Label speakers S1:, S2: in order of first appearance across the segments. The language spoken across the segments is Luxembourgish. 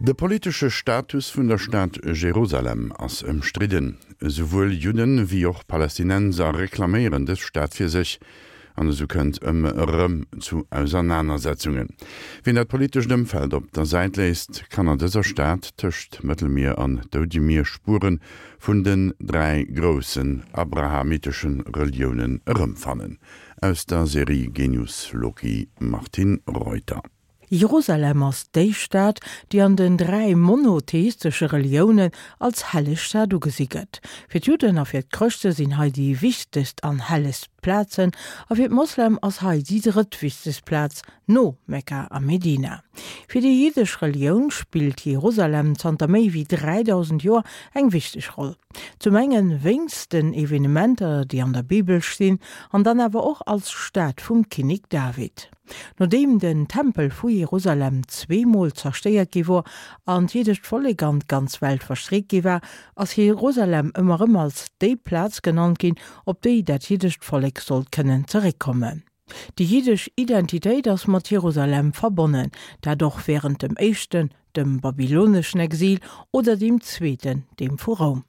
S1: De politesche Status vun der Stad Jerusalem ass ëmstridden. Esouwuel Judden wéi och Palästinenser reklaméieren dës Stad fir sech, an esou kënnt ëmmer erëm zu Ausernanersetzungen. Wien dat politescht Ëmfeld op der Säit léisst, kann an dëser Stad tëscht Mëttelmier an Doudemier Spuere vun den 3 groussen abrahamitesche Reliounen erëmfannen. Aus der Serie Genius Loci Martine Reuter.
S2: Jerusalem ass déi Stad, déi an den 3 monotheistesche Reliounen als helleg Stad ugesi gëtt. Fir d'Judden a fir d'Chrëschte sinn hei déi wichtegst an hellegst Plazen, a fir d'Moslem ass hei déi drëttwichtegst Plaz no Mekka a Medina. Fir déi jiddesch Relioun spillt Jerusalem zanter méi wéi 3.000 Joer eng wichteg Roll. Zum engen wéinst den Evenementer, déi an der Bibel stinn, an dann awer och als Stad vum Kinnek David. Nodeem den Tempel vu Jerusalem zweemol zerstéiert gi wor an d'jiddescht Vollek an d'ganz Welt verstreet gi war, ass Jerusalem ëmmer erëm als déi Plaz genannt ginn, op déi dat jiddescht Vollek sollt kënnen zeréckkommen. Déi jiddesch Identitéit ass mat Jerusalem verbonnen, dat och wärend dem éischten, dem babyloneschen Exil, oder deem zweeten, deem vu Roum.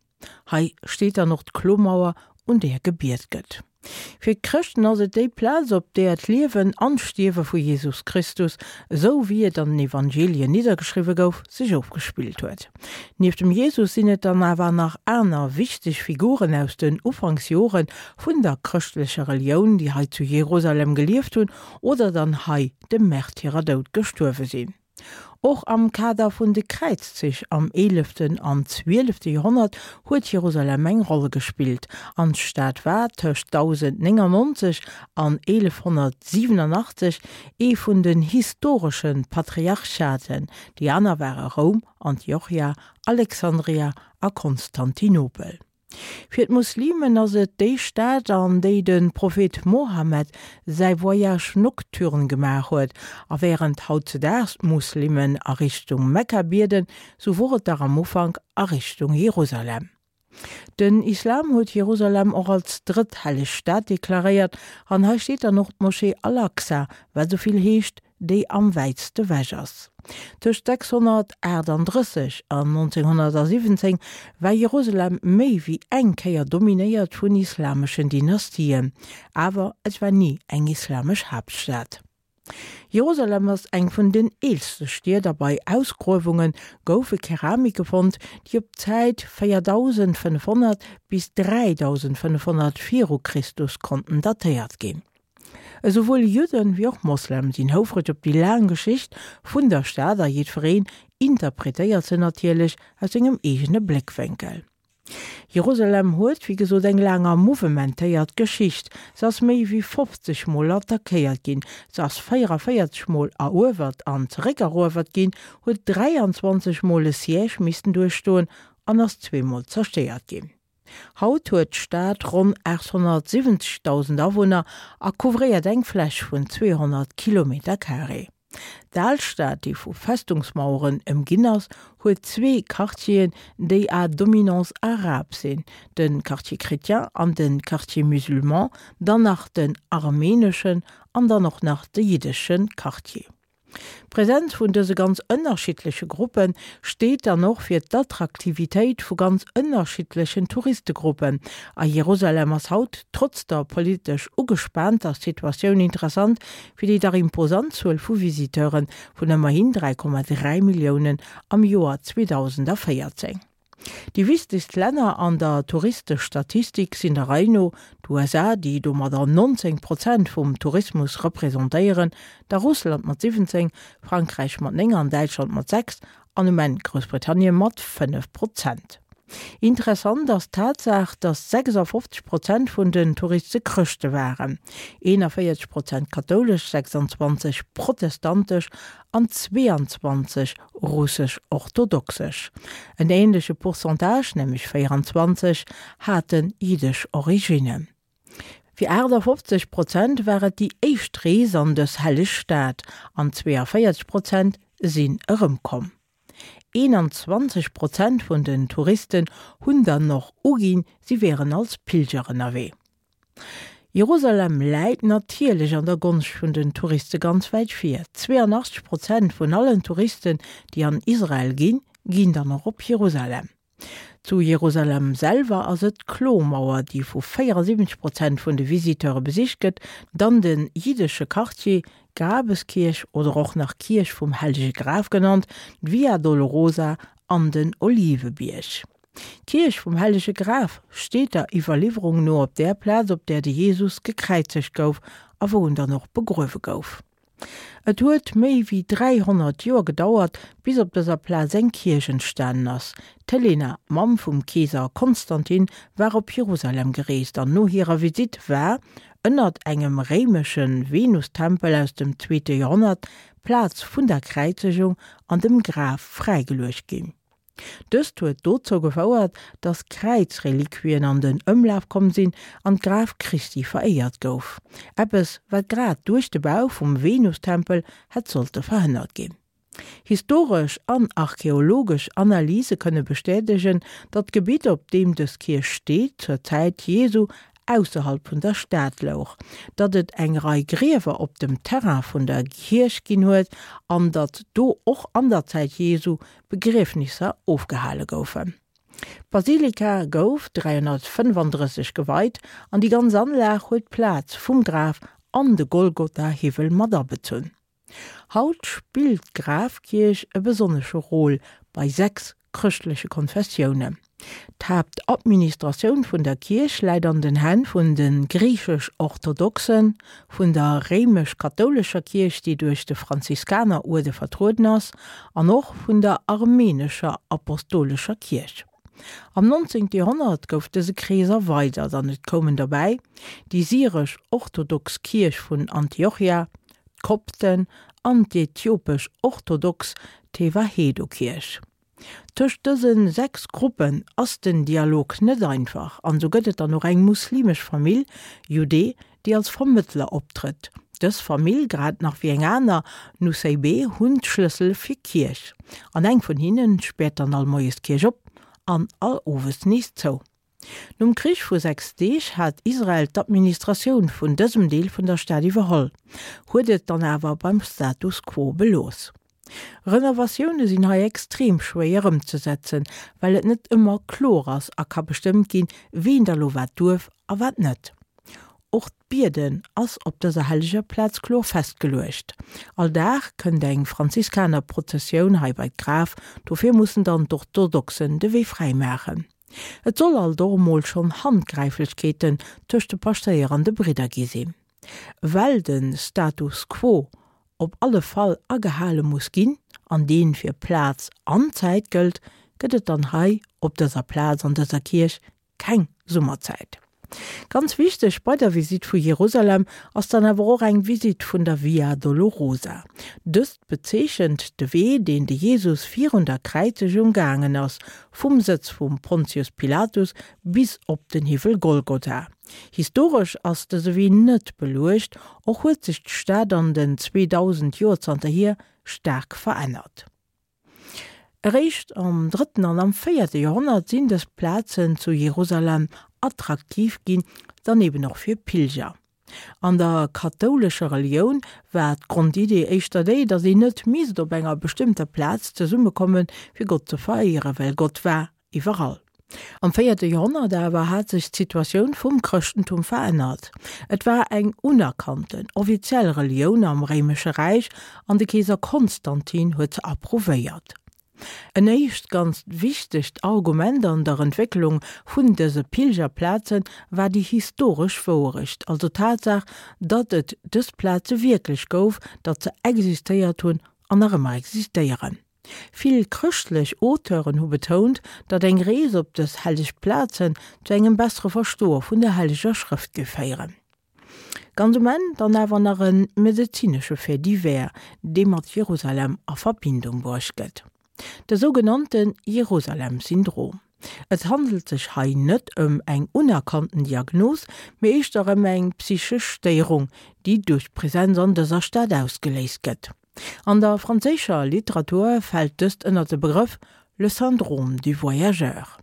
S2: Hei steet dann och d'Klomauer, un där gebiet gëtt. Fir d'Chrëschten ass et déi Plaz, op där d'Liewen an d'Stierwe vu Jesus Christus, esou wéi et an den Evangelien niddergeschriwwe gouf, sech ofgespillt huet. Nieft dem Jesus sinn et dann awer nach aner wichteg Figuren aus den Ufanksjore vun der chrëschtlecher Relioun, déi hei zu Jerusalem gelieft hunn oder dann hei dem Märtyrerdoud gestuerwe sinn. Och am Kader vun de Kräizzich am eeleften an zwielefte Joerhonnert huet Jerusalem eng Roll gespillt, an d'Stad war tëscht 1099 an 1187 ee vun den historesche Patriarchaten, déi aner ware Roum, Antiochia, Alexandria a Konstantinopel. Fir d'Muslimen ass et déi Stad, an déi de Prophet Mohammed säi Voyage nocturne gemaach huet. A wärend hautzedaags d'Muslimen a Richtung Mekka bieden, sou wor et dach am Ufank a Richtung Jerusalem. Den Islam huet Jerusalem och als drëtt helleg Stad deklaréiert an hei steet dann och d'Moschee Al-Aqsa, wat esou vill heescht déi am wäitste wech ass. Tëscht 638 an 1917 war Jerusalem méi wéi eng Kéier dominéiert vun islameschen Dynastien, awer et war ni eng islamesch Haaptstad. Jerusalem ass eng vun den eelste Stied a bei Ausgruewunge goufe Keramike fonnt, déi op d'Zäit 4500 bis 3500 viru Christus konnten datéiert ginn. Esouwuel Judden wéi och Moslem sinn houfreg op déi laang Geschicht vun der Stad a jiddwereen interpretéiert se natierlech aus sengem eegene Bléckwénkel. Jerusalem huet, wéi gesot, eng laang a mouvementéiert Geschicht. Se ass méi wéi 50 Mol attackéiert ginn, se ass 44 Mol eruewert an zeréckeruewert ginn, huet 23 Mol e Siège missten duerchstoen an ass zweemol zerstéiert ginn. Haut huet d'Stad ronn 870.000 Awunner a couvréiert eng Fläch vun 200 Kilometercarré. D'Alstad, déi vu Festungsmaueren ëmginn ass, huet zwee Quartieren, déi à dominance arabe sinn, de Quartier chrétien an de Quartier musulman, dann nach den armeneschen an dann och nach de jiddesche Quartier. D'Präsenz vun dëse ganz ënnerschiddleche Gruppe steet dann och fir d'Attraktivitéit vu ganz ënnerschiddlechen Touristegruppen. A Jerusalem ass haut, trotz der politesch ugespaanter Situatioun, interessant fir déi dach imposant Zuel vu Visiteure vun ëmmerhin 3,3 Milliounen am Joer 2014. Déi wichtegst Länner an der Touristestatistik sinn der Rei no, d'USA, déi domadder 19 Prozent vum Tourismus representéieren, da Russland mat 17, Frankräich mat 9 an Däitschland mat 6 an um Enn Groussbritannien mat 5 Prozent. Interessant ass d'Tatsaach, datt 56 Prozent vun den Touriste Chrëschte waren, 41 Prozent kathoulesch, 26 protestantesch an 22 russesch-orthodoxesch. En änleche Pourcentage, nämlech 24, hate jiddesch Originnen. Fir 58 Prozent war et déi éischt Rees an dës helleg Stad an 42 Prozent sinn erëmkomm. 21 Prozent vun den Touristen hunn dann och uginn, si wieren als Pilger ënnerwee. Jerusalem läit natierlech an der Gonscht vun den Touriste ganz wäit vir. 82 Prozent vun allen Touristen, déi an Israel ginn, ginn dann och op Jerusalem. Zu Jerusalem selwer ass et d'Klomauer, déi vu 74 Prozent vun de Visiteure besicht gëtt, dann de jiddesche Quartier, d'Grabeskierch oder och nach Kierch vum Hellege Graf genannt, d'Via Dolorosa an den Olivebierg. D'Kierch vum Hellege Graf steet der Iwwerliwwerung no op där Plaz, op där de Jesus gekräizegt gouf a wou en dann och begruewe gouf. Et huet méi wéi 300 Joer gedauert, bis op dëser Plaz eng Kierch entstanen ass. D'Helena, Mamm vum Keeser Konstantin, war op Jerusalem gereest an no hirer Visitt war, ënnert engem réimesche Venustempel aus dem zweete Joerhonnert, d'Plaz vun der Kräizegung an dem Graf fräigeluecht ginn. Dëst huet dozou gefouert, datt Kräizreliquien an den Ëmlaf komm sinn an d'Graf Christi veréiert gouf. Eppes, wat grad duerch de Bau vum Venustempel hätt sollte verhënnert ginn. Historesch an archeologesch Analyse kënne bestätegen, datt d'Gebitt, op deem dës Kierch steet, zur Zäit Jesu ausserhalb vun der Stad louch, datt et eng Rei Griewer op dem Terrain vun der Kierch ginn huet an datt do och an der Zäit Jesu Begriefnisser ofgehale goufen. D'Basilika gouf 335 geweit an déi ganz Anlag huet d'Plaz vum Graf an de Golgotha-Hiwwel mat abezunn. Haut spillt d'Grafkierch e besonnesche Rôle bei 6 chrëschtleche Konfessiounen. D'Haaptadministratioun vun der Kierch läit an den Hänn vun de griichesch-orthodoxen, vun der réimesch-kathoulescher Kierch, déi duerch de Franziskaneruerde vertrueden ass, an och vun der armenescher apostolescher Kierch. Am 19. Joerhonnert gouf dëse Krees erweidert an et koumen dobäi, déi syresch-orthodox Kierch vun Antiochia, d'Kopten an d'ethiopesch orthodox Tewahedo-Kierch. Tëscht dëse 6 Gruppen ass den Dialog net einfach an esou gëtt et dann och eng muslimesch Famill, Judee, déi als Vermëttler optrëtt. Dës Famill, grad nach wéi eng aner, Nusseibeh, hunn d'Schlëssel fir d'Kierch an eng vun hinnen späert dann all Moies d'Kierch op an all Owes nees zou. Nom Krich vu 6 Deeg hat Israel d'Administratioun vun dësem Deel vun der Stad iwwerholl, huet et dann awer beim Status quo belooss. Renovatioune sinn hei extrem schwéier ëmzesetzen, well et net ëmmer kloer ass a ka bestëmmt ginn, ween da lo wat duerf a wat net. Och d'Bieden ass op dëser helleger Plaz kloer festgeluecht. All Dag kënnt eng Franziskanerprozessioun hei bei d'Graf, dofir mussen dann d'Orthodoxen de Wee fräi maachen. Et soll alt och emol schonn Handgräiflechkeeten tëscht de Paschtéier an de Bridder gi sinn. Well de Status quo op alle Fall agehale muss ginn, an deen fir Plaz an Zäit gëllt, gëtt et dann hei op dëser Plaz an dëser Kierch keng Summerzäit. Ganz wichteg bei der Visitt vu Jerusalem ass dann awer och eng Visitt vun der Via Dolorosa. Dëst bezeechent de Wee, deen de Jesus virun der Kräizegung gaangen ass, vum Sëtz vum Pontius Pilatus bis op den Hiwwel Golgotha. Historesch ass dëse Wee net beluecht, och huet sech d'Stad an den 2000 Joer zanterhier staark verännert. Eréischt am drëtten an am véierte Joerhonnert sinn dës Plazen zu Jerusalem attraktiv ginn, dann eben och fir Pilger. An der kathoulescher Relioun war d'Grondidee éischter déi, datt een net misst op enger bestëmmter Plaz zesummekommen, fir Gott ze veréieren, well Gott war iwwerall. Am véierte Joerhonnert awer hat sech d'Situatioun vum Chrëschtentum verännert. Et war eng unerkannten, offiziell Relioun am Réimesche Räich an de Keeser Konstantin huet se approuvéiert. En éischt ganz wichtegt Argument an der Entwécklung vun dëse Pilgerplaze war déi historesch Wouerecht, also d'Tatsaach, datt et dës Plaze wierklech gouf, datt se existéiert hunn an nach ëmmer existéieren. Vill chrëschtlech Auteuren hu betount, datt eng Rees op dës helleg Plazen zu engem bessere Verstoe vun der Helleger Schrëft géif féieren. Ganz um Enn dann awer nach e medezinesche Fait divers, dee mat Jerusalem a Verbindung bruecht gëtt, de sougenannte Jerusalem-Syndrom. Et handelt sech hei net ëm eng unerkannten Diagnos, mee éischter ëm eng psychesch Stéierung, déi duerch d'Presenz an dëser Stad ausgeléist gëtt. An der franséischer Literatur fält dëst ënner de Begrëff le syndrome du voyageur.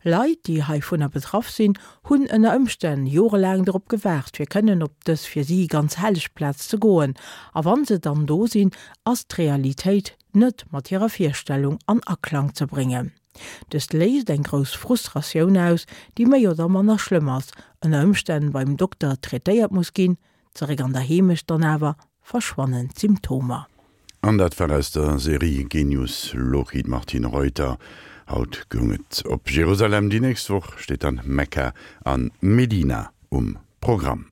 S2: Leit, déi heivunner betraff sinn, hunn ënner Ëmstänn jorelaang dorop gewaart, fir kënnen op dës fir si ganz helleg Plaz ze goen. A wann se dann do sinn, ass d'Realitéit net mat hirer Virstellung an Aklang ze bréngen. Dëst léist eng grouss Frustratioun aus, déi méi oder manner schlëmm ass, ënner Ëmstänn beim Dokter traitéiert muss ginn, Zeréck an der Heemecht dann awer verschwannen d'Symptomer.
S1: An dat war aus der Serie Genius Loci d'Martine Reuter. Haut goung et op Jerusalem, déi nächst Woch steet dann Mekka an Medina um Programm.